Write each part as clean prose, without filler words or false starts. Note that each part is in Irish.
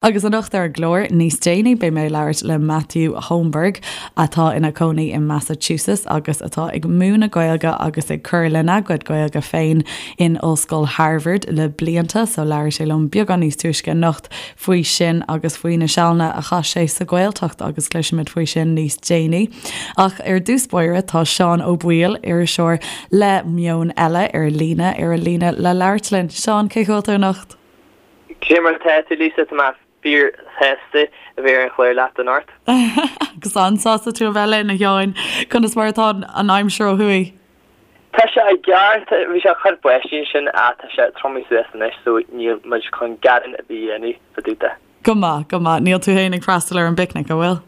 Agus anocht ar an gclár, níos déanaí, beidh mé ag labhairt le Matthew Holmberg, atá ina chónaí i Massachusetts agus atá ag múineadh Gaeilge agus ag cur lena gcuid Gaeilge féin in Ollscoil Harvard le blianta, so labhair sé liom beagán níos túisce anocht faoi sin agus faoi na sealanna a chaith sé sa Ghaeltacht agus cloisfimid faoi sin níos déanaí. Ach ar dtús báire tá Seán Ó Baoill, iriseoir le Meon Eile ar líne, ar an líne le labhairt linn. Seán, cén chaoi a bhfuil tú anocht? Cé mar atá tú, Lisa? Tá mé fíor shásta a bheith ar an chlár leat anocht. Agus an-sásta tú a bheith linn, a Sheáin. Conas mar atá an aimsir ó thuaidh? Tá sé i gceart. Bhí sé ag cur báistí ansin ach tá sé triomaithe suas anois so níl muid chun gearán ar bith a dhéanamh fá dtaobh de. Go maith, go maith. Níl tú féin ag freastal ar an bpicnic, an bhfuil?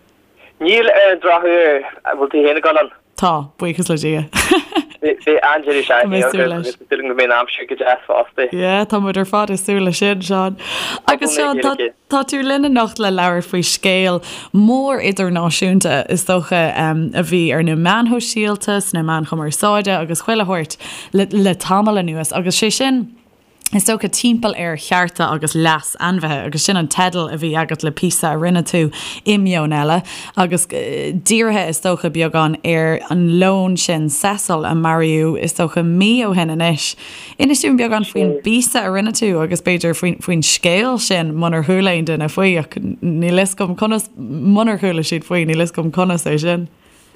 Níl ar an drochuair. An bhfuil tú féin ag dul ann? Tá, buíochas le Dia. Beidh an-deireadh seachtaine againn agus tá súil agam go mbeidh an aimsir go deas fosta. Yeah, tá muid ar fad ag súil leis sin, Seán. Agus Seán, tá tá tú linn anocht le labhairt faoi scéal mór idirnáisiúnta, is dócha, a bhí ar na meáin shóisialta, sna meáin chumarsáide agus chuile shórt le le tamall anuas agus sé sin, is dócha, timpeall ar chearta agus leas ainmhithe, agus sin an teideal a bhí agat le píosa a rinne tú i Meon Eile, agus dírithe, is dócha, beagán ar an leon sin, Cecil, a maraíodh, is dócha, mí ó shin anois. Inis dúinn beagán faoin bpíosa a rinne tú agus b'fhéidir faoin scéal sin, munar chuala aon duine faoi, ach níl fhios agam conas, munar chuala siad faoi, níl fhios agam conas é sin.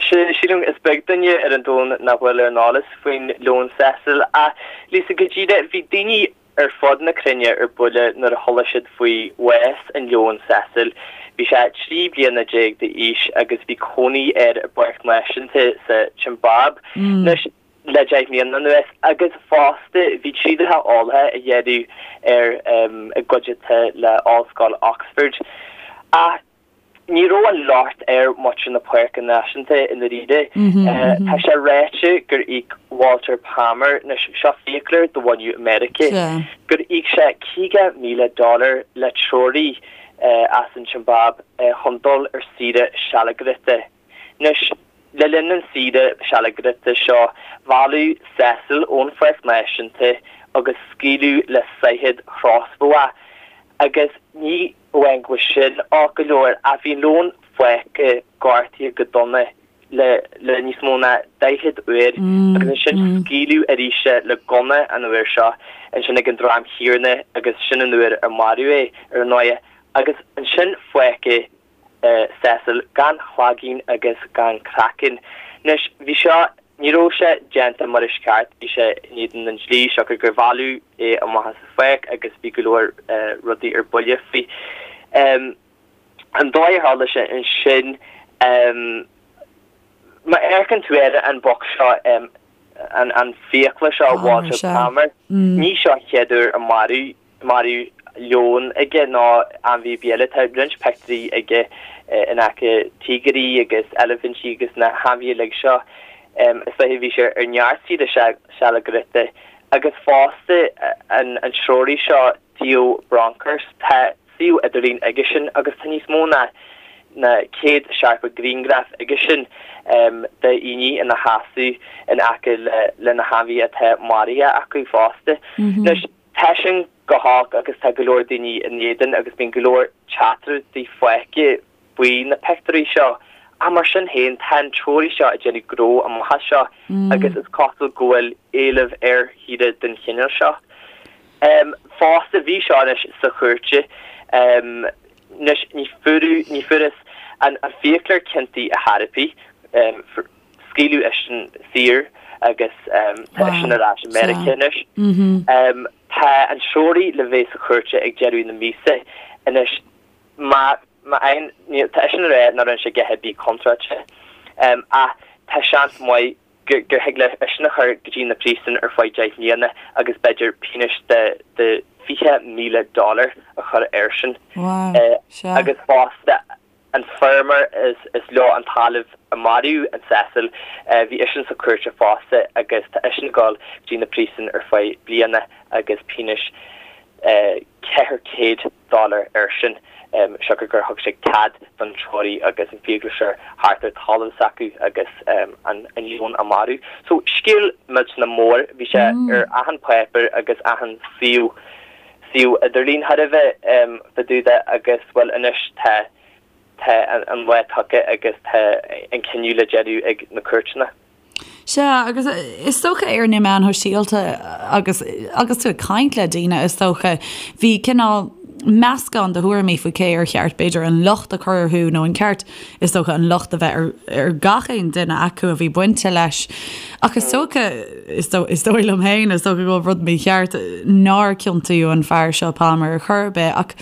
Sílim is beag duine ar an domhan nach bhfuil ar an eolas faoin leon Cecil. Ach, Lisa, go díreach, bhí daoine ar fud na cruinne ar buile nuair a chuala siad faoi bhás an leoin Cecil. Bhí sé 13 bliana d'aois agus bhí cónaí air i bpáirc náisiúnta sa tSiombáib anois le 10 mbliana anuas agus fosta bhí trialacha eolaithe á dhéanamh air i gcuideachta le Ollscoil Oxford. Ach Ní raibh an locht ar mhuintir na Páirce Náisiúnta i ndáiríre. Tá sé ráite gur íoc Walter Palmer, anois seo fiaclóir de bhunadh Meiriceá, gur íoc sé 50,000 dollar le treoraí as an tSiombáib chun dul ar saoire sealgaireachta. Anois, le linn an saoire sealgaireachta seo, mhealladh Cecil ón Pháirc Náisiúnta agus scaoileadh le saighead chrosbhó é. Agus ní amháin go bhfuil sin olc go leor, ach bhí an leon fágtha gortaithe go dona le le níos mó ná 40 uair agus ansin scaoileadh arís é le gunna an uair seo, ansin ag an dream chéanna agus sin an uair a maraíodh é ar ndóigh. Agus ansin fágadh Cecil gan cloigeann agus gan craiceann. Anois, bhí seo, ní raibh sé déanta mar is ceart, bhí sé in éadan an dlí, siocair gur mhealladh é amach as an pháirc agus bhí go leor rudaí ar buile faoi. An dóigh a tharla sé ansin, má amharcann tú ar an boc seo, an fiaclóir seo, Walter Palmer, ní seo an chéad uair a maraíodh maraíodh leon aige nó ainmhí ar bith eile. Tá roinnt pictiúirí aige in aice tíogair agus eilifintí agus na hainmhithe uilig seo. Is dóiche bhí sé ar neart saoire sealgaireachta. Agus fosta an treoraí seo Theo Bronkhorst, tá suíomh idirlín aigesean agus tá níos mó ná 170 grianghraf aigesean de dhaoine ina sheasamh in aice le na hainmhithe atá maraithe acu fosta. Anois. Tá sin go holc agus tá go leor daoine in éadan agus bíonn go leor teachtaireachtaí faighte faoi na pictiúirí seo. Ach mar sin féin, tá an treoraí seo ag déanamh gnó amach as seo agus is cosúil go bhfuil éileamh ar shaoire den chineál seo. Fosta, bhí seo anois sa chúirt. Anois, ní fuaireadh, ní fuarthas an fiaclóir ciontaithe ar chor ar bith. Scaoileadh eisean saor agus tá eisean ar ais i Meiriceá anois. Tá an treoraí le bheith sa chúirt ag deireadh na míosa anois. Má fhaigheann, tá eisean ag rá nach rinne sé a dhath ar bith contráilte ach tá seans maith gur thig le eisean a chur go dtí na príosúin ar feadh 10 mbliana agus b'fhéidir pionós de 20,000 dollar a chur airsean. Agus fosta An feirmeoir is leo an talamh a maraíodh an Cecil, bhí eisean sa chúirt fosta agus tá eisean ag dul go dtí na príosúin ar feadh bliana agus pionós 400 dollar airsean siocair gur thug sé cead don treoraí agus an fiaclóir theacht ar talamh s'acu agus an leon a marú. So scéal millteanach mór, bhí sé ar achan páipéar agus achan suíomh. suíomh idirlín thar a bheith fá dtaobh de agus, bhuel, anois tá, tá an lá tagtha agus tá an cinneadh le déanamh ag na cúirteanna. Sea, agus is dócha ar na meáin shóisialta agus agus tú ag caint le daoine, is dócha, bhí cineál meascán de thuairimí faoi cé ar cheart b'fhéidir an locht a chur orthu nó an ceart is dócha an locht a bheith ar ar gach aon duine acu a bhí bainte leis. Ach is dócha, is dóigh liom féin, is dócha go bhfuil rud mícheart nár ciontaíodh an fear seo Palmer ar chor ar bith ach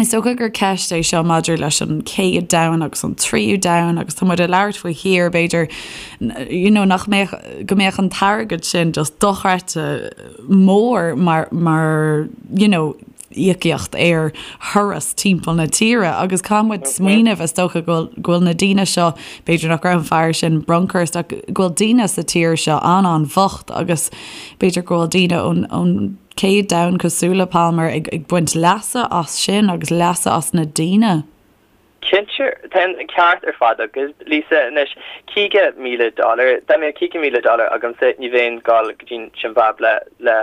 is dócha gur ceist é seo maidir leis an chéad domhan agus an tríú domhan agus tá muid ag labhairt faoi thír b'fhéidir you know nach mbeadh go mbeadh an t-airgead sin just dochreidte mór mar mar you know íocaíocht ar thuras timpeall na tíre agus caithfidh muid smaoineamh is dócha go bhfuil go bhfuil na daoine seo b'fhéidir nach raibh an fear sin Bronkhorst ach go bhfuil daoine sa tír seo an-an-bhocht agus b'fhéidir go bhfuil daoine ón ón chéad domhan cosúil le Palmer ag ag baint leasa as sin agus leasa as na daoine. Cinnte, tá an ceart ar fad agat, Lisa. Anois, $50,000, dá mbeadh $50,000 agamsa, ní bheinn ag dul go dtí an tSimbáib le le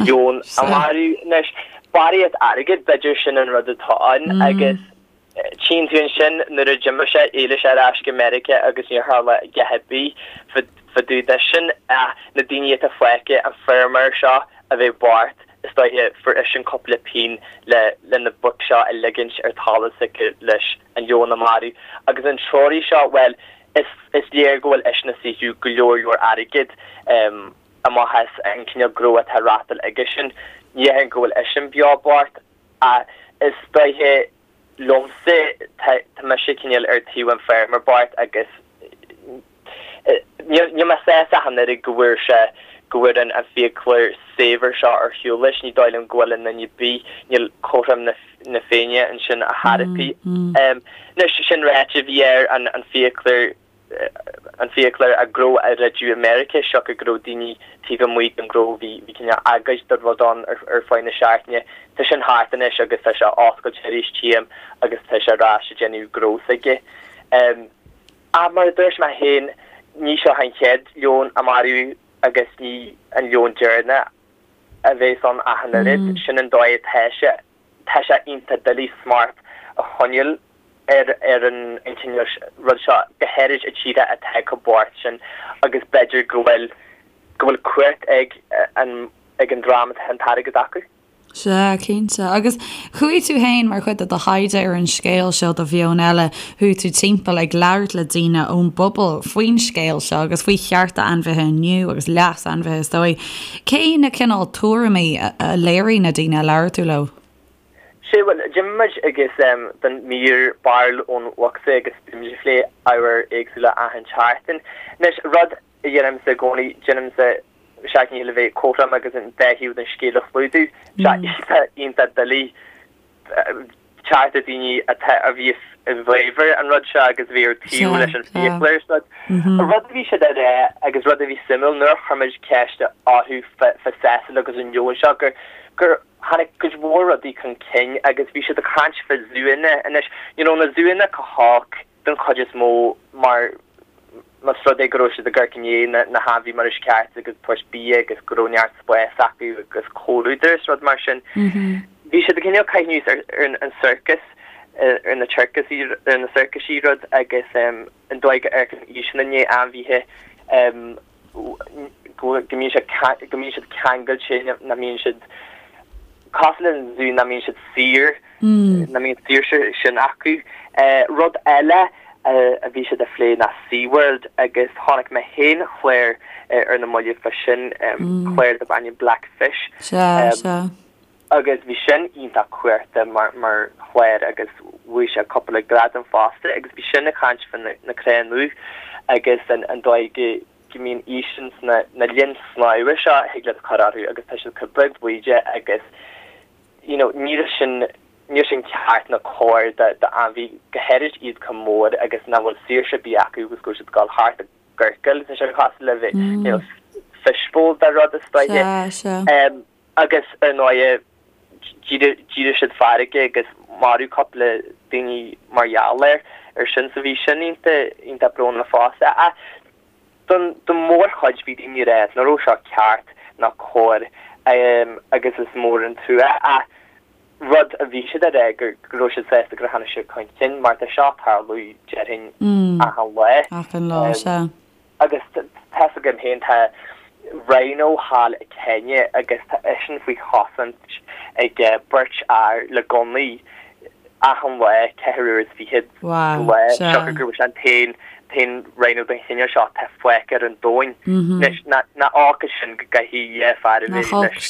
leon a mharú. Anois, barraíocht airgid, b'fhéidir sin an rud atá ann agus tchíonn tú ansin nuair a d'imigh sé, d'éalaigh sé ar ais go Meiriceá agus níor tharla a dhath ar bith fá dtaobh de sin ach na daoine atá fágtha, an feirmeoir seo a bheith bocht, Is dóiche, fuair eisean cúpla pingin le le na boic seo a ligint ar talamh s'aige leis an leon a mharú. Agus an treoraí seo, bhuel, is is léir go bhfuil eisean ag saothrú go leor leor airgid amach as an cineál gnó atá á reáchtáil aigesean. Ní dhéarfainn go bhfuil eisean beo bocht, ach is dóiche liomsa, tá tá mise cineál ar taobh an feirmeoir bocht agus Níl mé sásta ach an oiread go bhfuair sé, go bhfuair an fiaclóir saibhir seo ar shiúl leis. Ní dóigh liom go bhfuil i nduine ar bith, níl cothrom na Féinne ansin ar chor ar bith. Anois, sin ráite, bhí air an fiaclóir, an fiaclóir a ghnó a dhruideadh i Meiriceá, siocair go raibh daoine taobh amuigh den ghnó, bhí cineál agóid de rud ann ar feadh na seachtaine. Tá sin thart anois agus tá sé oscailte arís, tchím, agus tá sé ar ais ag déanamh gnó s'aige. Ach mar a dúirt mé féin, ní seo an chéad leon a maraíodh agus ní an leon deireanach a bheas ann ach an oiread. Sin an dóigh atá sé. Tá sé iontach doiligh smacht a choinneáil ar ar an cineál rud seo, go háirid i tíortha atá chomh bocht sin agus b'fhéidir go bhfuil go bhfuil cumhacht ag an ag an dream atá an t-airgead acu. Sea, cinnte. Agus chuaigh tú fhéin, mar chuid de do thaighde ar an scéal seo do Mheon Eile, chuaigh tú timpeall ag labhairt le daoine ón bpobal faoin scéal seo agus faoi chearta ainmhithe inniu agus leas ainmhithe is dóigh. Cé na cineál tuairimí a léirigh na daoine a labhair tú leo? Sea, bhuel, d'imigh muid agus don mír Barúil ón Bhocsa agus bhí muid ag plé ábhair éagsúla achan tseachtain. Anois, rud a dhéanaimse i gcónaí, déanaimse seacht ndícheall a bheith cothrom agus an dá thaobh den scéal a chlúdú. Tá sé iontach doiligh teacht ar daoine atá a bhí i bhfabhar an rud seo agus a bhí ar taobh leis an fiaclóir is rud. An rud a bhí siad a rá agus rud a bhí suimiúil nuair a chuir muid ceist orthu fá Cecil agus an leon seo gur gur tháinig cuid mhór rudaí chun cinn agus bhí siad ag caint fá zúanna anois. You know na zúanna chomh holc den chuid is mó mar más rud é go raibh siad ag amharc i ndiaidh na hainmhí mar is ceart agus tabhairt bia agus go raibh neart spáis acu agus comhluadar is rud mar sin. Bhí siad ag cineál caitheamh anuas ar an sorcas, ar na circusaí, ar na sorcaisí rud agus an dóigh go amharcann iadsan i ndiaidh ainmhithe go mbíonn siad go mbíonn siad ceangailte, nach mbíonn siad cosúil le an zú, nach mbíonn siad saor, nach mbíonn saoirse sin acu. Rud eile a bhí siad a phlé ná SeaWorld agus chonaic mé féin clár ar na mallaibh fá sin, clár darb ainm Black Fish. Sea, sea. Agus bhí sin iontach cuarta mar mar chlár agus bhuaigh sé cúpla gradam fosta agus bhí sin ag caint fá na crainn dubh agus an an dóigh go go mbíonn iadsan sna na linn snámha seo a thig leat cur orthu agus tá siad chomh beag bídeach agus you know níl sin níl sin ceart ná cóir do do ainmhí go háirid iad chomh mór agus nach bhfuil saoirse ar bith acu agus go bhfuil siad ag dul thart i gciorcal tá sé cosúil le bheith you know fishbowl de rud is dóiche. Sea, sea. Agus, ar ndóighe, d'éirigh siad feargach agus maraíodh cúpla daoine mar gheall air ar sin. So bhí sin iontach, iontach brónach fosta. Ach don, don mhórchuid bhí daoine ag rá nach raibh seo ceart ná cóir. Agus is mór an trua. Ach rud a bhí siad a rá go raibh siad sásta gur tháinig sé chun cinn mar tá seo ag tarlú déarfainn achan lá. Achan lá, sea. Agus tá's agam féin tá rhino thall i Kenya agus tá eisean faoi chosaint ag beirt fhear le gunnaí achan lá, 24 uair sa lá, siocair go bhfuil sé an t-aon t-aon rhino den chineál seo atá fágtha ar an domhan. Anois, nach olc é sin go gcaithfidh dhá fear a bheith leis,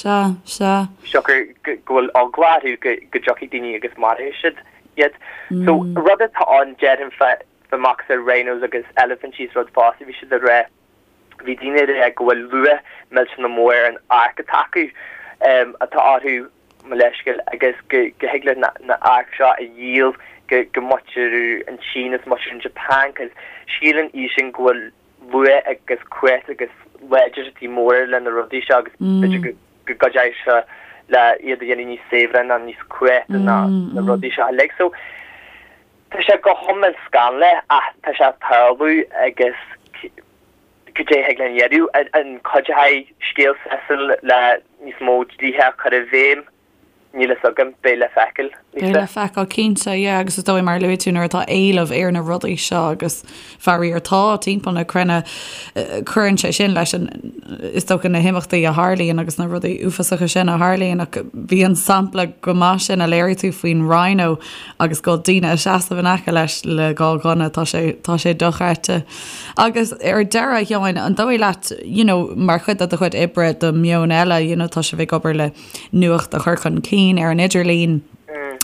siocair go bhfuil eagla orthu go dtiocfaidh daoine agus maróidh siad iad. So, rud atá ann, déarfainn, fá macasamhail rhinos agus eilifintí is rud fosta, bhí siad ag rá, bhí daoine ag rá go bhfuil luach millteanach mór ar an adharc atá acu, atá orthu, mo leithscéal, agus go thig leat na adharc seo a dhíol go go muintir an tSín is muintir an Japan cos síleann iadsan go bhfuil luach agus cumhacht agus láidreachtaí móra le na rudaí seo agus b'fhéidir go go gcuideoidh seo le iad a dhéanamh níos saibhre ná níos cumhachta ná na rudaí seo uilig. So tá sé go hiomlán scannalach ach tá sé ag tarlú agus cad é a thig linn a dhéanamh? An cuideoidh scéal Cecil le níos mó dlíthe a chur i bhfeidhm? Níl fhios agam, beidh le feiceáil, Lisa. Beidh le feiceáil, cinnte, yeah, agus is dóigh mar a luaigh tú nuair atá éileamh ar na rudaí seo agus faraor tá timpeall na cruinne, cuireann sé sin leis an, is dócha na himeachtaí a tharlaíonn agus na rudaí uafásacha sin a tharlaíonn ach bhí an sampla go maith sin a léirigh tú faoin rhino agus go bhfuil daoine ag seasamh in aice leis le dhá ghunna, tá sé, tá sé dochreidte. Agus ar deireadh, a Sheáin, an dóigh leat, you know, mar chuid de do chuid oibre do Meon Eile, you know, tá sibh ag obair le nuacht a chur chun cinn ar an idirlíon,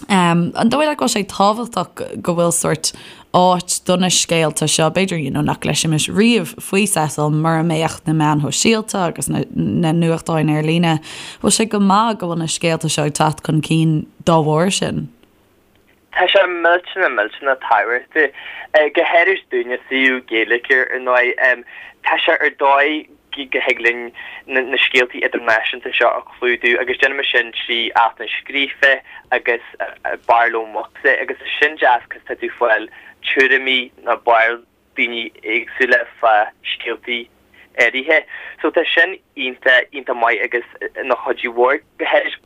um, an dóigh leat go bhfuil sé tábhachtach go bhfuil sórt áit do na scéalta seo, b'fhéidir, you know, nach gcloisfimis riamh faoi Cecil mura mbeadh na meáin shóisialta agus na, na nuachtáin ar líne, bhfuil sé go maith go bhfuil na scéalta seo ag teacht chun cinn dá bharr sin? Tá sé millteanach, millteanach tábhachtach, go háirid dúinne, suíomh Gaeilge ar ndóigh. Tá sé ar dóigh go thig linn na scéaltaí idirnáisiúnta seo a chlúdú agus déanaimid sin trí altanna scríofa agus barúil mucsa agus tá sin deas cos tá tú ag fáil tuairimí nó barúil daoine éagsúla fá scéaltaí áirithe. So tá sin iontach, iontach maith agus ina chuidiú mhór, go háirid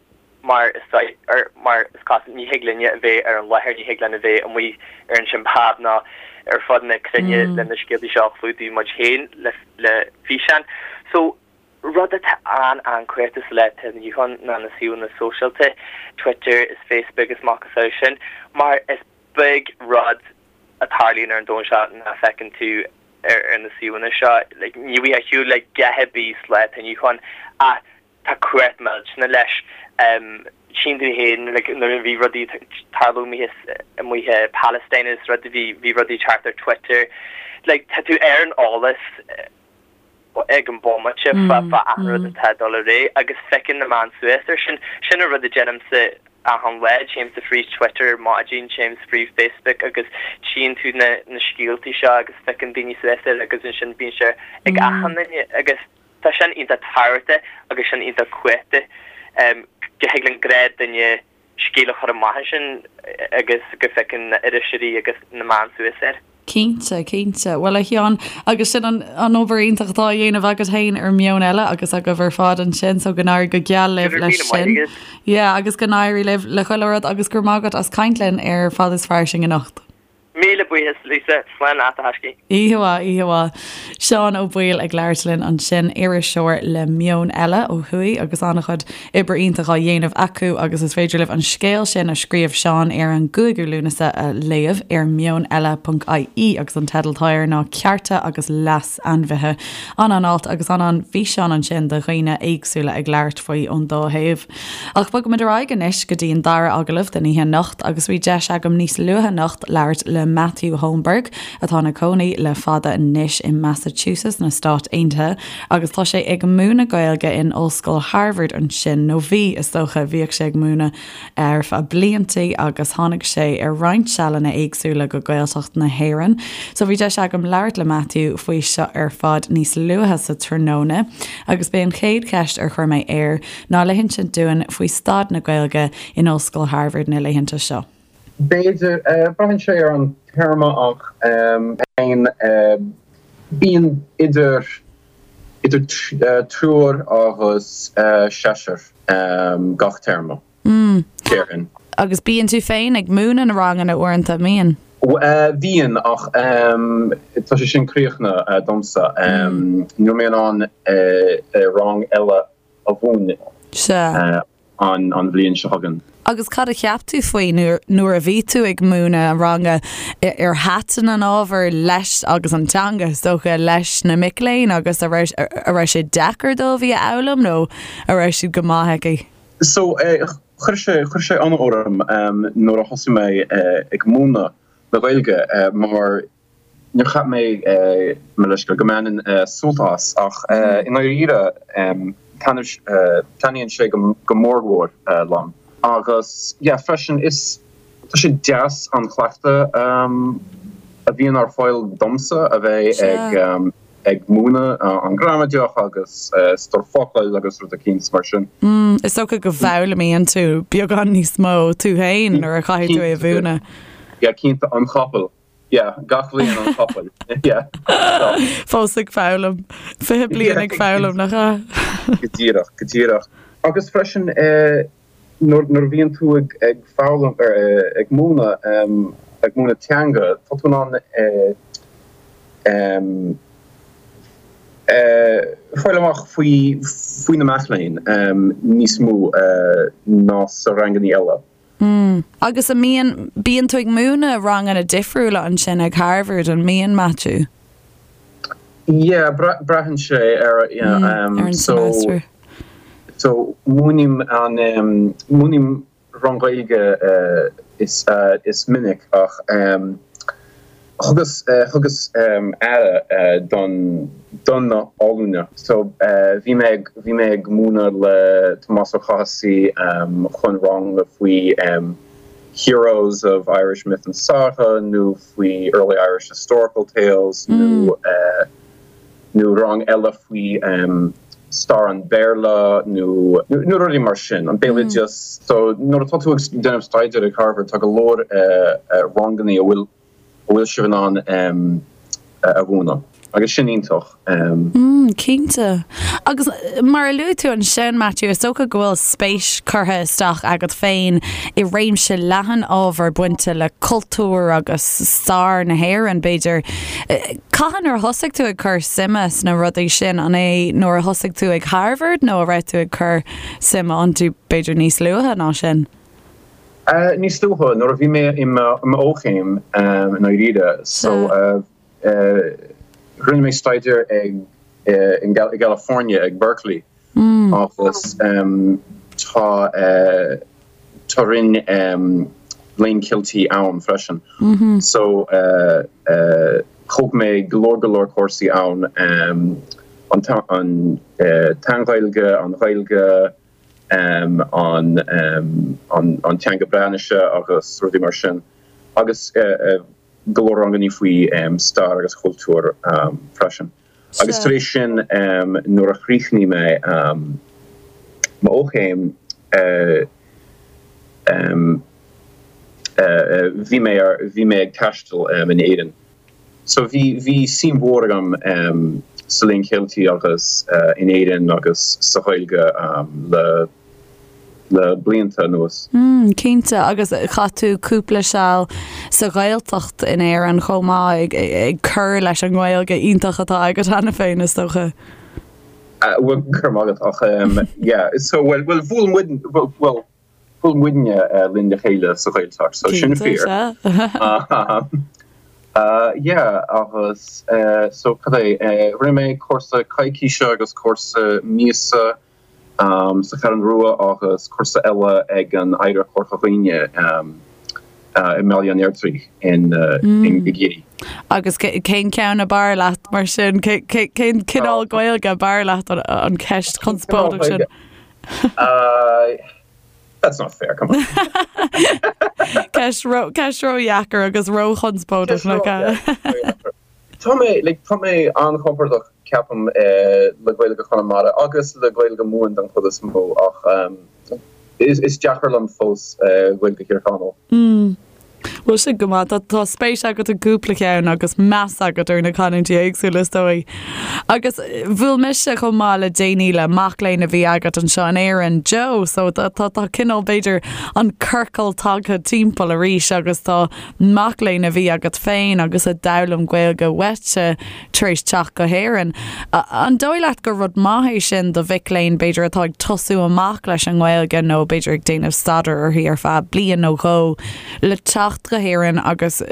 mar is ar, mar is cosúil, ní thig linne a bheith ar an láthair, ní thig linn a bheith amuigh ar an Siombáib ná ar fud na cruinne le na scéaltaí seo a chlúdú muid féin le, le físeán. So rud atá an-an-chumhachtach sa lá atá inniu ann ná na suíomhanna sóisialta, Twitter is Facebook is macasamhail sin, mar is beag rud a tarlaíonn ar an domhan seo nach bhfeiceann tú ar na suíomhanna seo. Like, ní bhíonn ar shiúl le dhath ar bith sa lá atá inniu ann ach tá cumhacht millteanach leis. Tchíonn tú féin like, nuair a bhí rudaí ag tarlú amuigh amuigh i Palestine is rud bhí bhí rudaí ag teacht ar Twitter. Like, tá tú ar an eolas ag an bomaite fá achan rud atá ag dul ar aghaidh agus piocann na meáin suas air sin. Sin an rud a déanaimse achan lá, téimse fríd Twitter ar maidin, téimse fríd Facebook agus tchíonn tú na na scéaltaí seo agus piocann daoine suas air agus ansin bíonn sé ag achan duine agus tá sin iontach tábhachtach agus sin iontach cumhachtach go thig le gnáthdhuine scéal a chur amach ansin agus go bpiocann na iriseoirí agus na meáin suas air. Cinnte, cinnte. Bhuel, a Sheáin, agus sin an an obair iontach atá á dhéanamh agat féin ar Meon Eile agus agaibh ar fad ansin, so go n-éirí go geal libh leis sin. Yeah, agus go n-éirí libh le chuile rud agus go raibh maith agat as caint linn ar Fad is Fairsing anocht. Míle buíochas, Lisa. Slán leat, a thaiscidh. Oíche mhaith, oíche mhaith. Seán Ó Baoill ag labhairt linn ansin, iriseoir le Meon Eile ó thuaidh agus an-chuid oibre iontach á dhéanamh acu agus is féidir libh an scéal sin a scríobh Seán ar an gcúigiú Lúnasa a léamh ar meoneile.ie agus an teideal atá air ná Cearta agus Leas Ainmhithe. An-an-alt agus an-an-fhíseán ansin de dhaoine éagsúla ag labhairt faoi ón dá thaobh. Ach bogfaimid ar aghaidh anois go dtí an dara agallamh den oíche anocht agus bhí deis agam níos luaithe anocht labhairt le Matthew Holmberg atá ina cónaí le fada anois i Massachusetts na Stát Aontaithe agus tá sé ag múineadh Gaeilge in Ollscoil Harvard ansin, nó bhí, is dócha, bhíodh sé ag múineadh ar feadh bliantaí agus tháinig sé ar roinnt sealanna éagsúla go Gaeltacht na hÉireann. So bhí deis agam labhairt le Matthew faoi seo ar fad níos luaithe sa tráthnóna agus b'é an chéad cheist ar chuir mé air ná le hinsint dúinn faoi staid na Gaeilge in Ollscoil Harvard na laethanta seo. B'fhéidir, braitheann sé ar an téarma ach féin, bíonn idir. Idir triúr agus seisear gach téarma, déarfainn. Agus bíonn tú féin ag múineadh na ranganna uaireanta, an mbíonn? Bíonn, ach tá sé sin críochnaithe domsa. Níl mé in ann rang eile a mhúineadh. Sea. an bhliain seo chugainn. Agus cad a cheap tú faoi nuair a bhí tú ag múineadh an ranga? Ar thaitin an ábhar leis agus an teanga, is dócha, leis na mic léinn agus a raibh a raibh sé deacair dóibh í a fhoghlaim nó a raibh siad go maith aici? So, chuir sé chuir sé ionadh orm nuair a thosaigh mé ag múineadh na Gaeilge mar Níor cheap mé, mo leithscéal, go mbainfinn sult as, ach i ndáiríre, taitníonn sé go mórmhór liom. Agus, yeah, freisin, is, tá sé deas an cleachtadh a bhíonn ar fáil domsa a bheith ag ag múineadh an ghramadach agus stór focal agus rud eicínt mar sin. Is dócha go bhfoghlaimíonn tú beagán níos mó tú féin nuair a chaithfidh tú é a mhúineadh. Yeah, cinnte, an capall. Yeah, gach bhliain an capall. Yeah. Fós ag foghlaim. 20 bliain ag foghlaim, nach ea? Go díreach, go díreach. Agus freisin, nuair a bhíonn tú ag ag foghlaim, ag múineadh, ag múineadh teanga, tá tú in ann fáil amach faoi faoi na mic léinn níos mó ná sa ranganna eile. Mm. Agus an mbíonn, bíonn tú ag múineadh ranganna difriúla ansin ag Harvard, an mbíonn, Maitiú? Yeah, braitheann sé ar, yeah, mm, ar an so, semester. So, múinim an, um, múinim rang Gaeilge uh, is, uh, is minic ach um, Thugas thugas aire don don na ollúna. So bhí mé ag bhí mé ag múineadh le Tomás Ó Cathasaigh chun rang faoi Heroes of Irish Myth and Saga nó faoi Early Irish Historical Tales nó nó rang eile faoi stair an Bhéarla nó nó rudaí mar sin, an béaloideas. So nuair atá tú ag déanamh staidéir ag Harvard tá go leor ranganna a bhfuil a bhfuil sibh in ann a mhúineadh agus sin iontach. Mm, cinnte. Agus mar a luaigh tú ansin, Matthew, is dócha go bhfuil spéis curtha isteach agat féin i réimse leathan ábhar bainte le cultúr agus stair na hÉireann, b'fhéidir. Cathain ar thosaigh tú ag cur suime sna rudaí sin? An é nuair a thosaigh tú ag Harvard nó a raibh tú ag cur suime iontu b'fhéidir níos luaithe ná sin? Níos luaithe, nuair a bhí mé i m'fhochéim i ndáiríre. So, rinne mé staidéar ag i gCalifornia ag Berkeley agus tá tá roinn Léann Ceilteach ann freisin. So, thóg mé go leor go leor cúrsaí ann, an tSean-Ghaeilge, an Ghaeilge, an teanga Breatnaise agus rudaí mar sin agus go leor ranganna faoi stair agus cultúr freisin. Agus tar éis sin nuair a chríochnaigh mé m'fhochéim bhí mé bhí mé ag taisteal in Éirinn. So bhí, bhí suim mhór agam sa Léann Ceilteach agus in Éirinn agus sa Ghaeilge le, le blianta anuas. Mm, cinnte, agus chaith tú cúpla seal sa Ghaeltacht in Éirinn chomh maith, ag, ag cur leis an nGaeilge iontach atá agat cheana féin, is dócha. Bhuel, go raibh maith agat, ach yeah, so bhuel, bhuel, bhuail muid, bhuel, Bhuail muidne linn le chéile sa Ghaeltacht, so sin fíor. Yeah, agus so cad é, rinne mé cúrsa coicíse agus cúrsa míosa sa Cheathrú Rua agus cúrsa eile ag an Oidhreacht Chorca Dhuibhne i mBaile an Fheirtéaraigh in i gCiarraí. Agus cén ceann ab fhearr leat mar sin? Cén cineál Gaeilge ab fhearr leat an cheist chonspóideach sin? That's not fair, come on. Ceist ró-dheacair agus ró-chonspóideach nach ea? Tá mé, like, tá mé an-chompordach, ceapaim, le Gaeilge Chonamara agus le Gaeilge Mumhan den chuid is mó ach is deacair liom fós Gaeilge Thír Chonaill. Bhuel sin go maith. Tá spéis agat i gcúpla ceann agus meas agat ar na canúintí éagsúla is dóigh. Agus bhuail mise chomh maith le déanaí le mac léinn a bhí agat anseo in Éirinn, Joe, so tá tá cineál b'fhéidir an ciorcal tagtha timpeall arís agus tá mac léinn a bhí agat féin agus a d'fhoghlaim Gaeilge uaitse tar éis teacht go hÉirinn. An dóigh leat gur rud maith é sin do mhic léinn, b'fhéidir, atá ag tosú amach leis an nGaeilge nó b'fhéidir ag déanamh staidéir uirthi ar feadh bliain nó dhó, le teacht go hÉirinn agus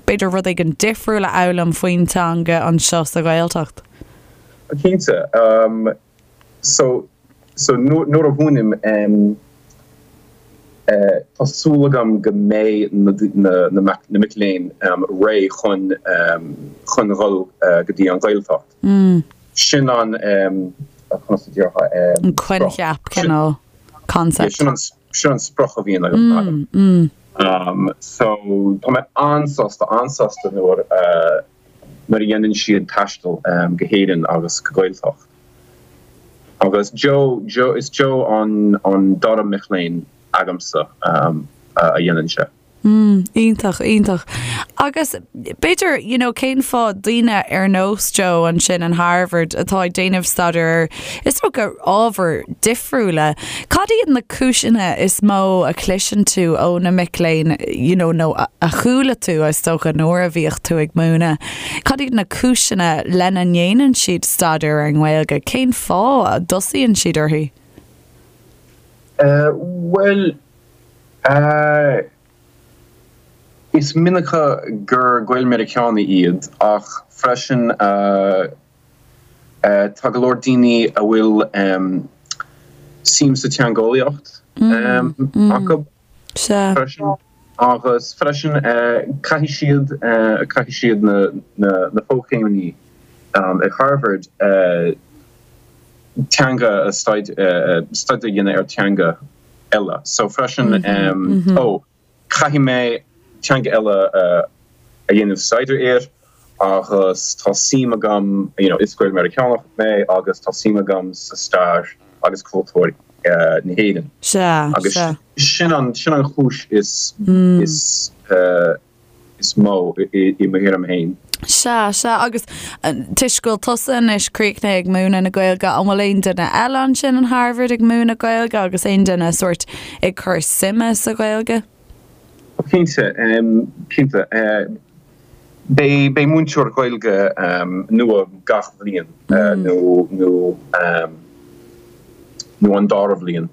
b'fhéidir rud éigin difriúil a fhoghlaim faoin teanga anseo sa Ghaeltacht? Cinnte. So, so nuair a mhúinim, tá súil agam go mbeidh na mic léinn réidh chun chun dhul go dtí an Ghaeltacht. Sin an, conas a déarfá, An coincheap, cineál, concept. Sin an, sin an sprioc a bhíonn agam. So, tá mé an-sásta, an-sásta nuair a, nuair a dhéanann siad taisteal go hÉirinn agus go Gaeltacht. Agus Joe, Joe, is Joe an an dara mic léinn agamsa a dhéanann sé. Mm, iontach, iontach. Agus b'fhéidir, you know, cén fáth daoine ar nós Joe ansin in Harvard atá ag déanamh staidéar ar, is dócha, ábhair difriúla, cad iad na cúiseanna is mó a chloiseann tú ó na mic léinn, you know, nó a chuala tú, is dócha, nuair a bhíodh tú ag múineadh? Cad iad na cúiseanna lena ndéanann siad staidéar ar an nGaeilge? Cén fáth a dtosaíonn siad uirthi? Bhuel, is minic gur Gael-Meiriceánaigh iad ach freisin tá go leor daoine a bhfuil suim sa teangeolaíocht acu. Sea. Freisin. Agus freisin caithfidh siad, caithfidh siad na, na, na fochéimeanna ag Harvard teanga a staidéar a dhéanamh ar teanga eile. So freisin, ó, caithfidh mé teanga eile a dhéanamh staidéar air agus tá suim agam, you know, is Gael-Meiriceánach mé agus tá suim agam sa stair agus cultúr na hÉireann. Sea, Agus sea. sin an, sin an chúis is, is, is mó i mo thuairim féin. Sea, sea, agus toisc go bhfuil tusa anois críochnaithe ag múineadh na Gaeilge, an bhfuil aon duine eile ansin in Harvard ag múineadh Gaeilge agus aon duine sórt ag cur suime sa Ghaeilge? Cinnte, cinnte. Beidh, beidh múinteoir Gaeilge nua gach bhliain nó, nó, nó an dara bhliain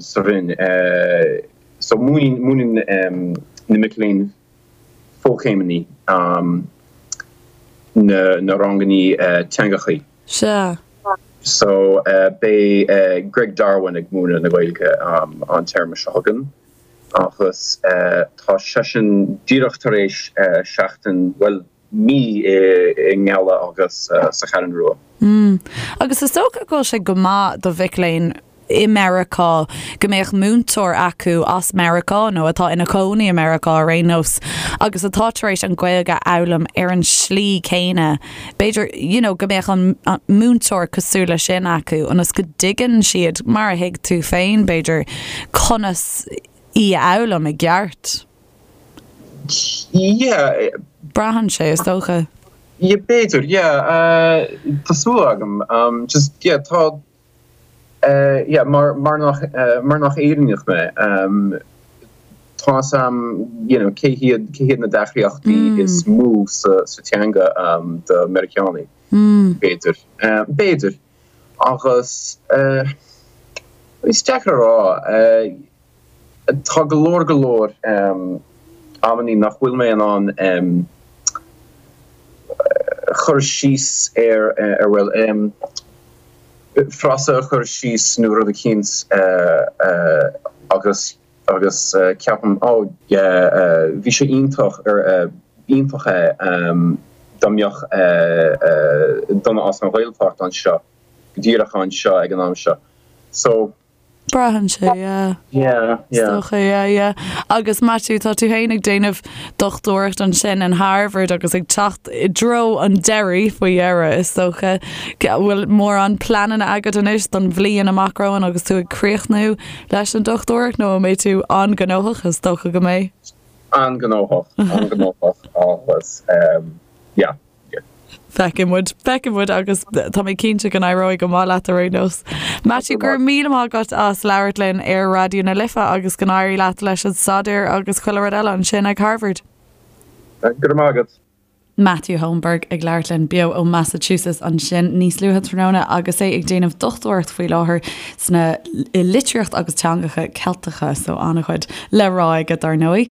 sa Roinn. So múineann, múineann na mic léinn fochéimeanna na, na rangannaí teangachaí. Sea. So beidh Greg Darwin ag múineadh na Gaeilge an téarma seo chugainn agus tá seisean díreach tar éis seachtain, bhuel, mí i nGaillimh agus sa Cheathrú Rua. Mm. Agus is dócha go bhfuil sé go maith do mhic léinn i Meiriceá go mbeadh múinteoir acu as Meiriceá nó atá ina chónaí i Meiriceá ar aon nós agus atá tar éis an Ghaeilge a fhoghlaim ar an slí céanna. B'fhéidir, you know, go mbeadh an múinteoir cosúil leis sin acu ionas go dtuigeann siad, mar a thuig tú féin, b'fhéidir, conas í a fhoghlaim i gceart. Yeah. Braitheann sé, is dócha. Yeah, b'fhéidir, yeah. Tá súil agam. Just, yeah, tá, Yeah, mar, mar nach, mar nach Éireannach mé, tá 'fhios a'm, you know, cé hiad, cé hiad na deacrachtaí is mó sa, sa teanga do Meiriceánaigh, b'fhéidir. B'fhéidir. Agus, is deacair a rá, tá go leor, go leor amannaí nach bhfuil mé in ann cur síos ar, ar, bhuel, frása a chur síos nó rud eicínt agus agus ceapaim, oh, yeah, bhí sé iontach ar, iontach é dá mbeadh duine as an Ghaeltacht anseo, go díreach anseo ag an am seo. So. Braitheann sé, yeah. Yeah, yeah. Is dócha, yeah, yeah. Agus Maitiú, tá tú féin ag déanamh dochtúireacht ansin in Harvard agus ag teacht i dtreo an deiridh faoi dheireadh, is dócha. Bhfuil mórán pleananna agat anois don bhliain amach romhainn agus tú ag críochnú leis an dochtúireacht nó an mbeidh tú an-ghnóthach, is dócha go mbeidh? An-ghnóthach, an-ghnóthach agus yeah. Feicfidh muid, feicfidh muid agus tá mé cinnte go n-éireoidh go maith leat ar aon nós. Matthew, go raibh míle maith agat as labhairt linn ar Raidió na Life agus go n-éirí leat leis an staidéar agus chuile rud eile ansin ag Harvard. Go raibh maith agat. Matthew Holmberg ag labhairt linn beo ó Massachusetts ansin níos luaithe tráthnóna agus é ag déanamh dochtúireacht faoi láthair sna i litríocht agus teangacha Ceilteacha, so an-chuid le rá aige dar ndóigh.